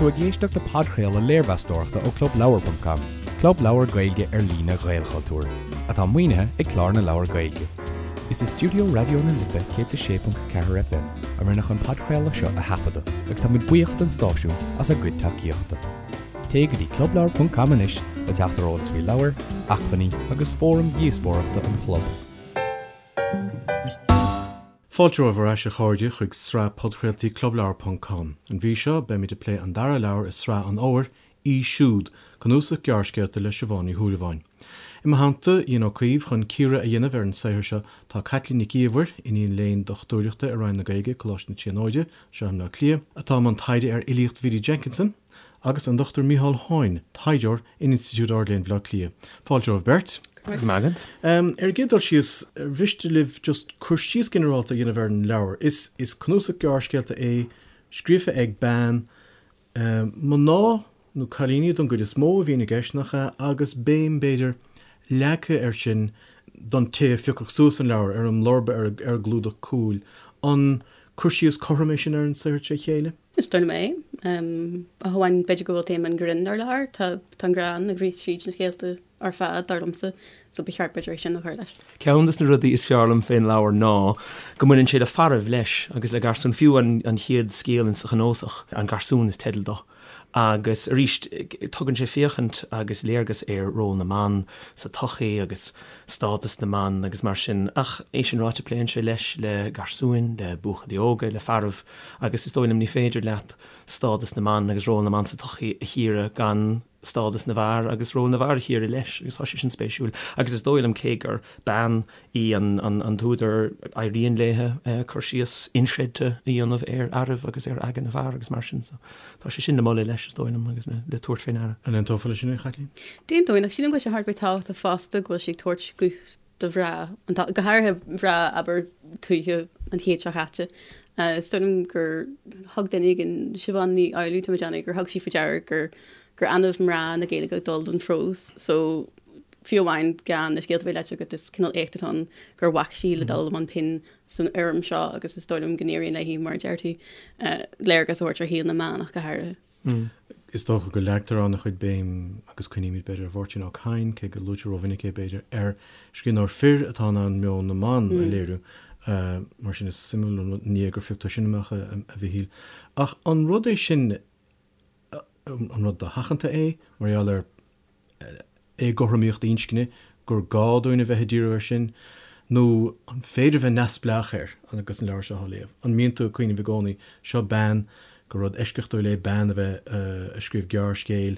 tú ag éisteacht le podchraoladh léirmheastóireachta ó ClubLeabhar.com, club leabhar Gaeilge ar líne Ghaelchultúir, atá maoinithe ag Clár na Leabhar Gaeilge. Is i stiúideo Raidió na Life 106.4 FM a rinneadh an podchraoladh seo a thaifeadadh agus tá muid buíoch don stáisiún as a gcuid tacaíochta. Téigh go dtí clubleabhar.com anois le teacht ar eolas faoi leabhair, acmhainní agus fóraim dhíospóireachta an chlub. Fáilte romhaibh ar ais a chairde chuig sraith podchraoltaí clubleabhar ponc com. An mhí seo beimid ag plé an dara leabhar i sraith an fhómhair, Í Siúd, cnuasach gearrscéalta le Siobhán Ní Shúilleabháin. I mo theannta, Ian Ó Caoimh, chun cíoradh a dhéanamh ar an saothar seo tá Caitlín Nic Íomhair, iníon léinn dochtúireachta i Roinn na Gaeilge, Coláiste na Tríonóide, anseo i mBleá Cliath, atá i mbun taighde ar fhilíocht Bhiddy Jenkinson, agus an Dr Micheál Hoyne, taighdeoir in Institiúid Ard-Léinn Bhaile Átha Cliath. Fáilte romhaibh beirt. Go raibh maith agat. Ar an gcéad dul síos, ar mhiste libh just cur síos ginearálta a dhéanamh ar an leabhar? Is is cnuasach gearrscéalta é, scríofa ag bean, mná nó cailíní don gcuid is mó a bhíonn i gceist, nach ea, agus béim, b'fhéidir, leagtha air sin don té a phiocfadh suas an leabhar, ar an mblurba ar ar an gclúdach cúil. An cur síos cothrom é sin ar an saothar tré chéile? Is dóigh liom é. Ach amháin b'fhéidir go bhfuil téama an ghrinn ar lár. Tá an greann ag rith tríd na scéalta ar fad, dar liomsa, so ba cheart b'fhéidir é sin a chur leis. Ceann de na rudaí is fearr liom fén leabhar ná go mbaineann sé le fearaibh leis agus le garsúin, fiú an chéad scéal insa chnuasach, An Garsún is teideal dó. Agus arís tugann sé féachaint agus léargas ar ról na mban sa tsochaí agus stádas na mban agus mar sin. Ach é sin ráite pléann sé leis le garsúin, le buachaillí óga, le fearaibh agus is dóigh liom ní féidir leat stádas na mban agus ról na mban sa tsochaí a chíoradh gan stádas na bhfear agus ról na bhfear a chíoradh leis agus tá sé sin spéisiúil agus is dóigh liom cé gur bean í an t-údar éiríonn léithe cur síos inchreidte a dhéanamh ar fhearaibh agus ar aigne na bhfear agus mar sin so tá sé sin le moladh leis is dóigh liom agus le tabhairt fé ndeara. An aontófá leis sin a Chaitlín? D'aontóinn ach sílim go bhfuil sé thar a bheith tábhachtach fosta go bhfuil sí ag tabhairt guth do mhná, go háirithe mná, abair, tuaithe an chéid seo chaite. Is dóigh liom gur thug duine éigin, Siobhán Ní Fhoghlú, tá mé ag déanamh, gur thug sí faoi deara gur gur annamh mná na Gaeilge ag dul don phrós so fiú amháin gan na scéalta a bheith léite agat is cineál éacht atá ann gur bhac sí le dul i mbun pinn san fhoirm seo agus is dóigh liom go n-éiríonn léi, mar a deir tú, léargas a thabhairt ar shaol na mban ach go háirithe. Is dócha go leagtar an-chuid béim, agus cuimhnímid b'fhéidir ar Mháirtín Ó Cadhain, cé go luaitear rómhinic é b'fhéidir, ar scríbhneoir fir atá in ann meon na mban a léiriú. Mar sin is suimiúil an ní é gur phioc tú sin amach, a Mhichíl. Ach an rud é sin, an rud dosheachanta é, mar gheall ar éagothromaíocht inscne, gur gá dúinn a bheith ag díriú air sin, nó an féidir a bheith neamhspleách air agus an leabhar seo á léamh? An mbíonn tú ag cuimhneamh i gcónaí, seo bean, gur rud eisceachtúil é bean a bheith ag scríobh gearrscéil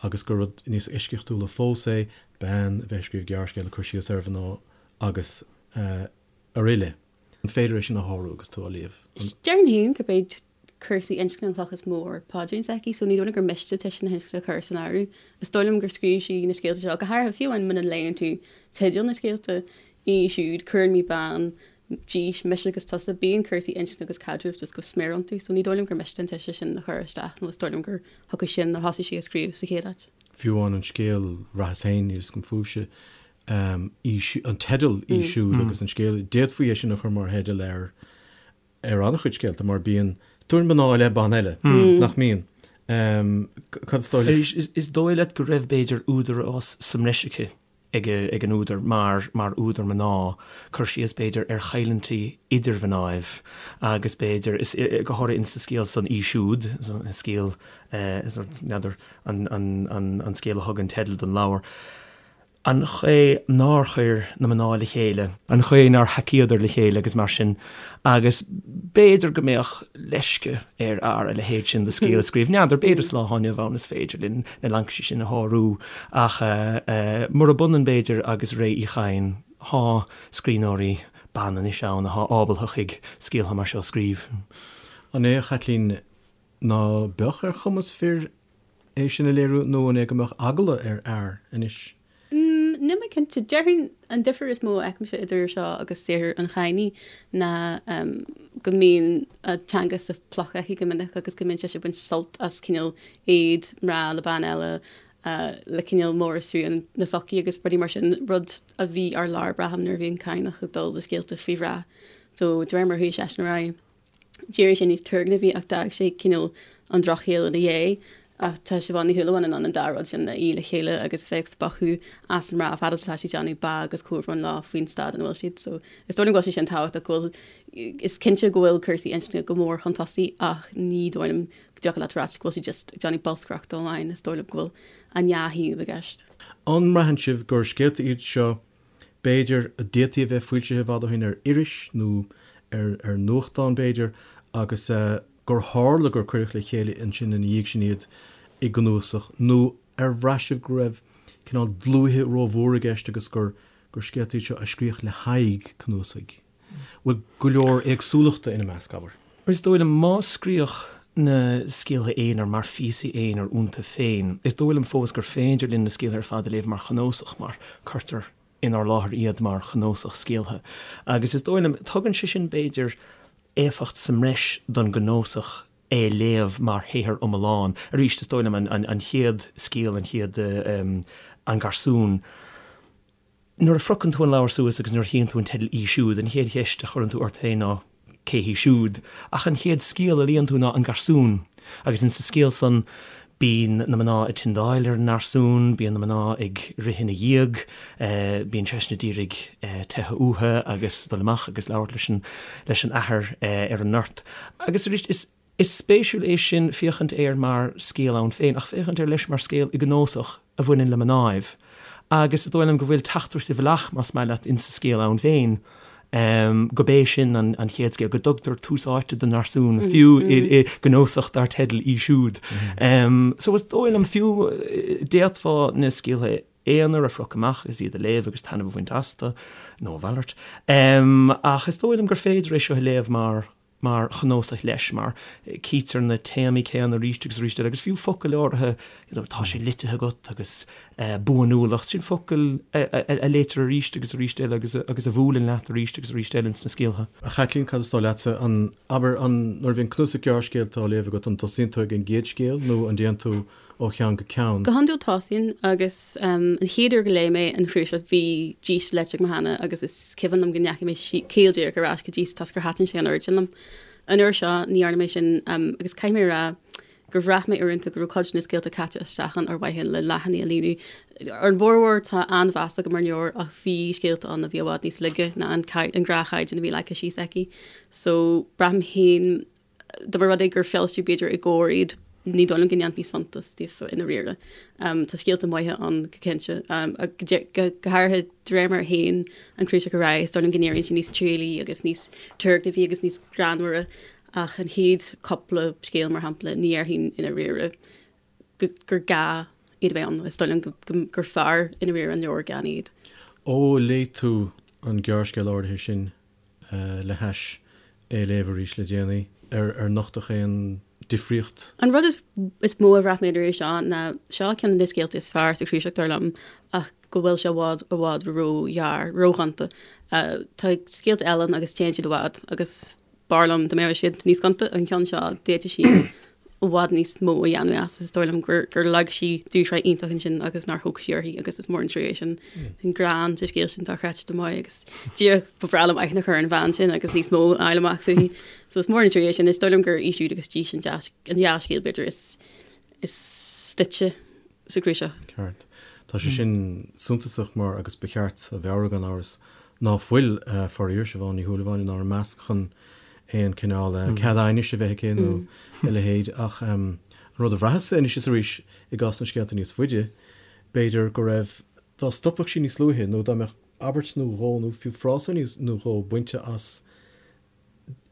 agus gur rud níos eisceachtúla fós é bean a bheith ag scríobh gearrscéil ag cur síos ar mhná agus araile. An féidir é sin a shárú agus tú á léamh? Déarfainn féin gurb iad cúrsaí inscne an chloch is mó ar paidrín s'aici, so ní dóigh liom gur miste toise na hinscne a chur san áireamh. Is dóigh liom gur scríobh sí na scéalta seo, go háirithe fiú amháin muna léann tú teideal na scéalta, í siúd, cuireann mé bean, dís, mise agus tusa, bíonn cúrsaí inscne agus caidrimh just go smior iontu, so ní dóigh liom gur miste an toise sin a chur isteach nó is dóigh liom gur chucu sin a thosaigh sí ag scríobh sa chéad áit. Fiú amháin an scéal Bhraitheas Féin, níl 'fhios agam fúibhse, an teideal í siúd agus an scéal, d'fhéadfaí é sin a chur mar theideal ar ar an-chuid scéalta mar bíonn tuairim mná i leith ban eile, nach mbíonn? Cad is dóigh leat? Is dóigh leat go raibh, b'fhéidir, údarás sa mbreis aici, ag an údar, mar mar údar mná, cur síos, b'fhéidir, ar choimhlintí idir mhnáibh agus, b'fhéidir, is, go háirithe insa scéal san Í Siúd, an scéal, n'fheadar, an scéal a thug an teideal don leabhar. an chaoi nár chuir na mná le chéile, an chaoi nár thacaíodar le chéile agus mar sin, agus b'fhéidir go mbeadh leisce ar fhear a leithéid sin de scéal a scríobh. N'fheadar, b'fhéidir sa lá atá inniu ann is féidir linn na laincisí sin a shárú, ach murab ionann b'fhéidir agus ré Uí Chadhain, thá scríbhneoirí ban anois ann athá ábaltha chuig scéaltha mar seo a scríobh. An é, a Chaitlín, ná beadh ar chumas fir é sin a léiriú nó an é go mbeadh eagla ar fhear anois? Níl mé cinnte. Déarfainn an difear is mó a fheicimse idir seo agus saothar an Chadhnaigh ná go mbíonn a teanga sa phluc aici go minic agus go mbíonn sise ag baint sult as cineál éad mná le bean eile le cineál móraistriú na sochaí agus rudaí mar sin, rud a bhí ar lár braithim nuair a bhí an Cadhnach ag dul do scéalta faoi mhná. So de réir mar a chuaigh seisean ar aghaidh. D'éirigh sé níos turgnamhaí ach d'fhág sé cineál an drochshaol ina dhiaidh. Ach tá Siobhán Ní Shúilleabháin in ann an dá rud sin a fhí le chéile agus a bheith ag spochadh as na mná fad is atá sí ag déanamh bá agus comhbhrón leo faoin staid ina bhfuil siad. So is dóigh liom go bhfuil sé sin tábhachtach go bhfuil, is cinnte go bhfuil cúrsaí inscne go mór chun tosaigh ach ní dóigh liom go dtiocfadh leat a ráit go bhfuil sí just ag déanamh bolscaireachta amháin, is dóigh liom go bhfuil an dhá thaobh i gceist. An mbraitheann sibh gur scéalta iad seo b'fhéidir, a d'fhéadfaí a bheith foilsithe i bhfad ó shin ar iris nó ar nuachtán, b'fhéidir, agus gur tharla gur cuireadh le chéile ansin ina dhiaidh sin iad i gcnuasach, nó ar bhraith sibh go raibh cineál dlúithe rómhór i gceist agus gur scéalta iad seo a scríodh le haghaidh cnuasaigh? Bhfuil go leor éagsúlachta ina measc, abair? Is dóigh liom, má scríodh na scéaltha aonair mar phíosaí aonair iontu féin, is dóigh liom fós gur féidir linn na scéaltha ar fad a léamh mar chnuasach, mar cuirtear inár láthair iad mar chnuasach scéaltha. Agus is dóigh liom, tugann sé sin, b'fhéidir, éifeacht sa mbreis don gcnuasach é a léamh mar shaothar iomlán. Arís, is dóigh liom, an chéad scéal, an chéad, An Garsún, Nuair a phriocann tú an leabhar suas agus nuair a chíonn tú an teideal Í Siúd, an chéad cheist a chuireann tú ort féin ná cé hí siúd? Ach an chéad scéal a léann tú ná An Garsún. Agus insa scéal san bíonn na mná ag tindeáil ar an ngarsún, bíonn na mná ag rith ina dhiaidh, bíonn seisean a d'iarraidh teitheadh uathu agus dul amach agus labhairt leis an leis an athair ar an ngort. Agus arís is. Is spéisiúil é sin féachaint air mar scéal ann féin, ach féachaint air leis mar scéal i gcnósach a bhaineann le mnáibh. Agus is dóigh liom go bhfuil teachtaireacht i bhfolach, más maith leat, insa scéal ann féin, go b'é sin an chéad scéal, go dtugtar tús áite don ngarsún, fiú i gcnósach dar teideal Í Siúd. So is dóigh liom, fiú, d'fhéadfá na scéaltha aonair a phriocadh amach agus iad a léamh agus taitneamh a bhaint astu, nó a mhalairt. Ach is dóigh liom gur féidir é seo a léamh mar mar chnuasach leis, mar cítear na téamaí céanna arís agus arís eile, agus fiú focail áirithe, you know, tá sé litithe agat agus buanúlacht, sin focail a léitear arís agus arís eile agus agus a bhuaileann leat arís agus arís eile ins na scéaltha. A Chaitlín, cad is dóigh leatsa, an, abair, an, nuair a bhíonn cnuasach gearrscéalta á léamh agat, an dtosaíonn tú ag an gcéad scéal nó an dtéann tú ó cheann go ceann. Go hiondúil tosaím agus an chéad uair go léigh mé an chnuasach bhí Dís léite agam cheana agus is cuimhin liom go ndeachaigh mé caol díreach ar ais go Dís toisc gur thaitin sé an oiread sin liom. An uair seo ní dhearna mé sin agus caithfidh mé a rá gur bhraith mé uaireanta go raibh cuid de na scéalta caite isteach ann ar mhaithe le leathanaigh a líonadh. Ar an bhformhór tá an-mheas agam ar an leabhar ach bhí scéalta ann a bhí i bhfad níos laige ná an gnáthchaighdeán a bhí leagtha síos aici. So braithim féin Dá mba rud é gur foilsíodh b'fhéidir i gComhar iad, ní dóigh liom go ndéanfaí suntas díofa i ndáiríre. Tá scéalta maithe ann go cinnte, go háirithe de réir mar a théann an cnuasach ar aghaidh, is dóigh liom go n-éiríonn sé níos trialaí agus níos turgnamhaí agus níos greannmhaire ach an chéad cúpla scéal, mar shampla, ní dhéarfainn i ndáiríre gur gá iad a bheith ann. Is dóigh liom gur fearr i ndáiríre an leabhar gan iad. Ó léigh tú an gearrscéal áirithe sin le hais é a léamh arís le déanaí, ar nochtadh aon difríocht? An rud is mó a bhraith mé an iarraidh seo ná seo ceann de na scéalta is fearr sa chnuasach dar liom ach go bhfuil sé i bhfad, i bhfad róghearr, róghonta. Tá scéalta eile ann agus téann siad i bhfad agus b'fhearr liom dá mbeadh siad níos gonta. An ceann seo, d'fhéadfadh sí i bhfad níos mó a dhéanamh as. Is dóigh liom gur gur leag sí dúshraith iontach ansin agus nár thóg sí uirthi agus is mór an trua é sin. An greann sa scéal sin dochreidte maith agus díreach ba bhreá liom aithne a chur ar an bhean sin agus níos mó a fháil amach fúithi. So is mór an trua é sin. Is dóigh liom gur í siúd agus dís an dá scéal b'fhéidir is is stoite sa chnuasach. Ceart. Tá sé sin suntasach mar, agus ba cheart a mheabhrú gan amhras, ná fuil, faraor, Siobhán Ní Shúilleabháin inár measc chun aon cineál cead aighnis a bheith aici nó a leithéid. Ach an rud a bhraitheas anois is arís i gcás na scéalta níos faide, b'fhéidir go raibh, dá stopfadh sí níos luaithe nó dá mbeadh abairt nó dhó nó fiú frása nó dhó bainte as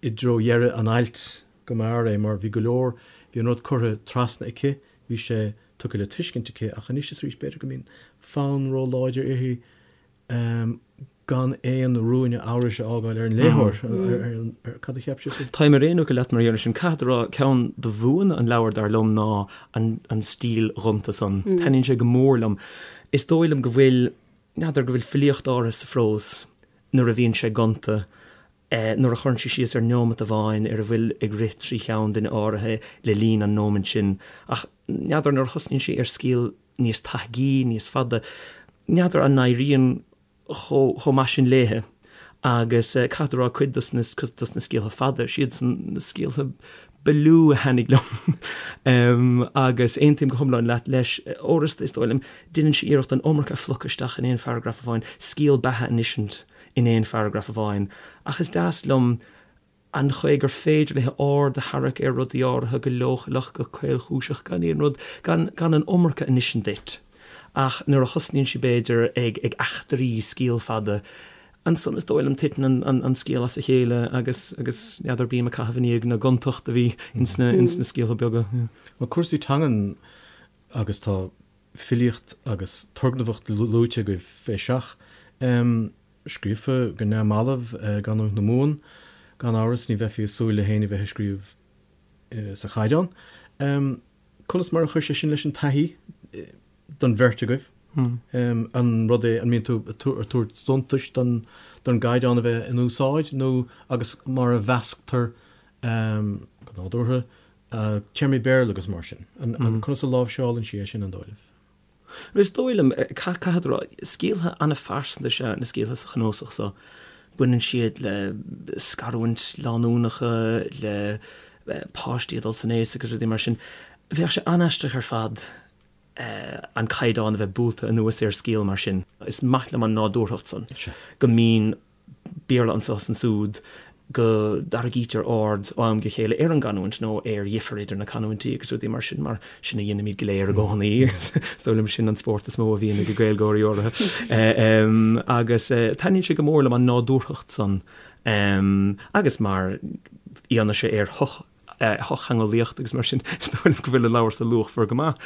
i dtreo dheireadh an ailt go mb'fhearr é mar bhí go leor, bhí an rud curtha trasna aici, bhí sé tugtha le tuiscint aici ach anois is arís b'fhéidir go mbíonn fonn róláidir uirthi gan aon ruainne amhrais a fhágáil ar an léitheoir, ar cad a cheap sibh? Táim ar aon fhocal leat mar gheall air sin. Caithfead a rá, ceann de bhuanna an leabhair dar liom ná an stíl ghonta san. Taitníonn sé go mór liom. Is dóigh liom go bhfuil, n'fheadar, go bhfuil filíocht áirithe sa phrós nuair a bhíonn sé gonta, nuair a chuireann sé síos ar neomat amháin, ar a bhfuil ag rith trí cheann duine áirithe le linn an nóimint sin. Ach n'fheadar, nuair a thosnaíonn sí ar scéal níos taithgí, níos fada, n'fheadar an n-éiríonn chomh maith sin léithe. Agus caithfead a rá, cuid dos na scéaltha fada, siadsan na scéaltha ba lú a thaitnigh liom. Agus aontaím go hiomlán leat leis, uaireanta is dóigh liom, déanann sí iarracht an iomarca a phlocadh isteach in aon pharagraf amháin, scéal beatha a insint in aon pharagraf amháin. Ach is deas liom an chaoi gur féidir léi aird a tharrac ar rudaí áirithe go leochaileach, go caolchúiseach, gan aon rud, gan, gan an iomarca a insint duit. Ach nuair a thosnaíonn sí, b'fhéidir, ag, ag eachtraí scéal fada, ansan is dóigh liom titeann an, an, an scéal as a chéile agus, agus n'fheadar, bím ag caitheamh i ndiaidh na gontacht a bhí ins na, ins na scéaltha beaga. Bhuel, cúrsaí teangan agus tá filíocht agus turgnamhacht luaite agaibh fé seach. Scríofa go neamhbhalbh i gcanúint na Mumhan, gan amhras, ní bheifí ag súil le héinne bheith ag scríobh sa chaighdeán. Conas mar a chuir sé sin leis an taithí don bheirt agaibh? An rud é, an mbíonn tú ag tabhairt suntais don gcaighdeán a bheith in úsáid nó agus mar a mheasctar go nádúrtha téarmaí Béarla agus mar sin? Conas a láimhseálann sí é sin, an dóigh libh? Is dóigh liom, caithfead a rá, scéaltha an-phearsanta is ea na scéaltha sa chnuasach so. Baineann siad le scarúint lánúnacha, le páistí ag dul san aos agus rudaí mar sin. Bheadh sé an-aisteach ar fad an caighdeán a bheith buailte anuas ar scéal mar sin. Is maith liom an nádúrthacht san, go mbíonn Béarla anseo is ansúd, go dtarraingítear aird ó am go chéile ar an gcanúint nó ar dhifear idir na canúintí agus rudaí mar sin, mar sin a dhéanaimid go léir i gcónaí. Is dóigh liom sin an spórt is mó a bhíonn ag Gaeilgeoirí áirithe. Agus taitníonn sé go mór liom an nádúrthacht san agus mar fhianaise ar shoch shochtheangeolaíocht agus mar sin, is dóigh liom go bhfuil an leabhar so luachmhar go maith.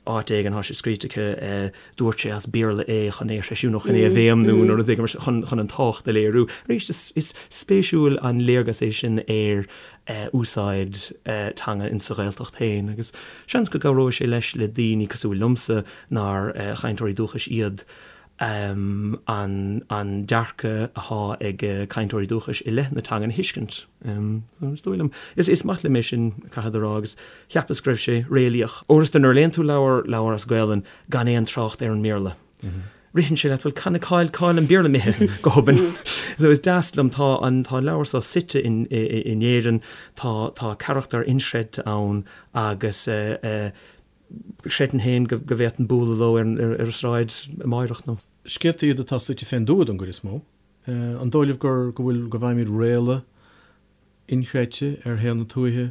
Áit éigin tá sé scríte aici, dúirt sé as Béarla é chun é a threisiú nó chun é a bhéimniú nó rud éigin mar sin, chun an tábhacht a léiriú. Arís, is spéisiúil an léargas é sin ar úsáid teanga insa Ghaeltacht féin agus seans go gcabhróidh sé leis le daoine cosúil liomsa nár chainteoirí dúchais iad. an dearcadh atá ag cainteoirí dúchais i leith na teangan a thuiscint. Is dóigh liom, is maith liom é sin, caithfead a rá, agus cheapas go raibh sé réalaíoch. Uaireanta nuair a léann tú leabhar, leabhar as Gaolainn gan aon trácht ar an mBéarla, ritheann sé leat, bhuel, can, cá'il, cá'il an Béarla imithe go hobann? So is deas liom, tá an, tá an leabhar seo suite in, in Éirinn, tá, tá carachtair inchreidte ann agus eh, Chreidfinn féin go bhféadfainn bualadh leo ar an sráid amáireach nó. Scéalta iad atá suite fén dtuath don gcuid is mó. An dóigh libh gur, go bhfuil, go bhfaighimid réaladh inchreidte ar shaol na tuaithe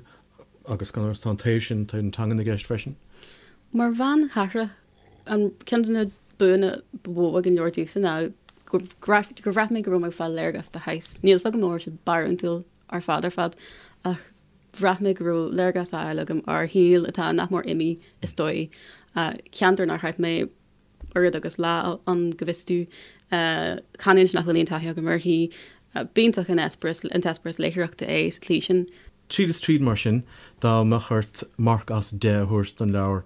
agus gan amhras tá an taobh sin, taobh na teangan i gceist freisin? Mar bhean chathrach, an ceann de na buanna ba mhó ag an leabhar domhsa ná gur bhraith mé go raibh mé ag fáil léargas de shaghas. Níl 's agam an raibh sé barúntúil ar fad ar fad ach Bhraith mé go raibh léargas á fháil agam ar shaol atá nach mór imithe, is dóigh. Ceantar nár chaith mé oiread agus lá ann, go bhfios domh. Canúint nach bhfuil aon taithí agam uirthi. B'iontach an eispéireas, an t-eispéireas léitheoireachta é sa tslí sin. Tríd is tríd, mar sin, dá mbeadh ort marc as 10 a thabhairt don leabhar,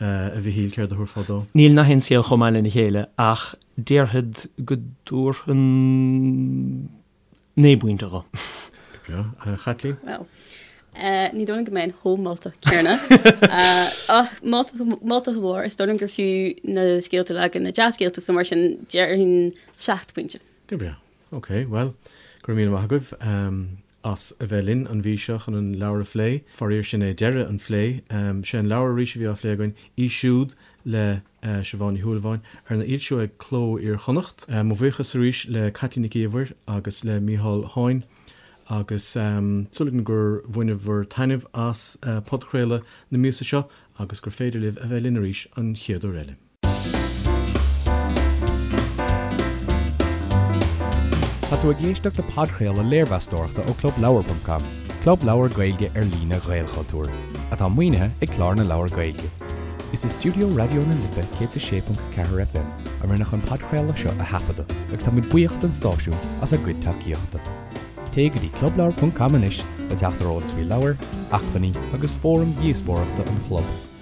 a Mhichíl, céard a thabharfá dó? Níl nach aon scéal chomh maith lena chéile ach déarfad go dtabharfainn 9 bpointe dho. Go breá. A Chaitlín? Bhuel, ní dóigh liom go mbeinn chomh moltach céanna. Ach moltach go mór, is dóigh liom gur fiú na scéalta uilig, na dea-scéalta, so mar sin déarfainn 7 bpointe. Go breá. Ok, bhuel, go raibh míle maith agaibh as a bheith linn an mhí seo chun an leabhar a phlé. Faraor sin é deireadh an phlé. Sé an leabhar arís a bhí á phlé againn, Í Siúd le Siobhán Ní Shúilleabháin, arna fhoilsiú ag Cló Iar-Chonnacht. Mo bhuíochas arís le Caitlín Nic Íomhair agus le Mícheál Háin agus súil agam gur bhaineabhair taitneamh as podchraoladh na míosa seo agus gur féidir libh a bheith linn arís an chéad uair eile. Tá tú ag éisteacht le podchraoladh léirmheastóireachta ó ClubLeabhar.com, club leabhar Gaeilge ar líne Ghaelchultúir, atá maoinithe ag Clár na Leabhar Gaeilge. Is i stiúideo Raidió na Life 106.4 FM a rinneadh an podchraoladh seo a thaifeadadh agus táimid buíoch don stáisiún as a gcuid tacaíochta. Téigh go dtí clubleabhar.com anois le teacht ar eolas faoi leabhair, acmhainní agus fóraim dhíospóireachta an chlub.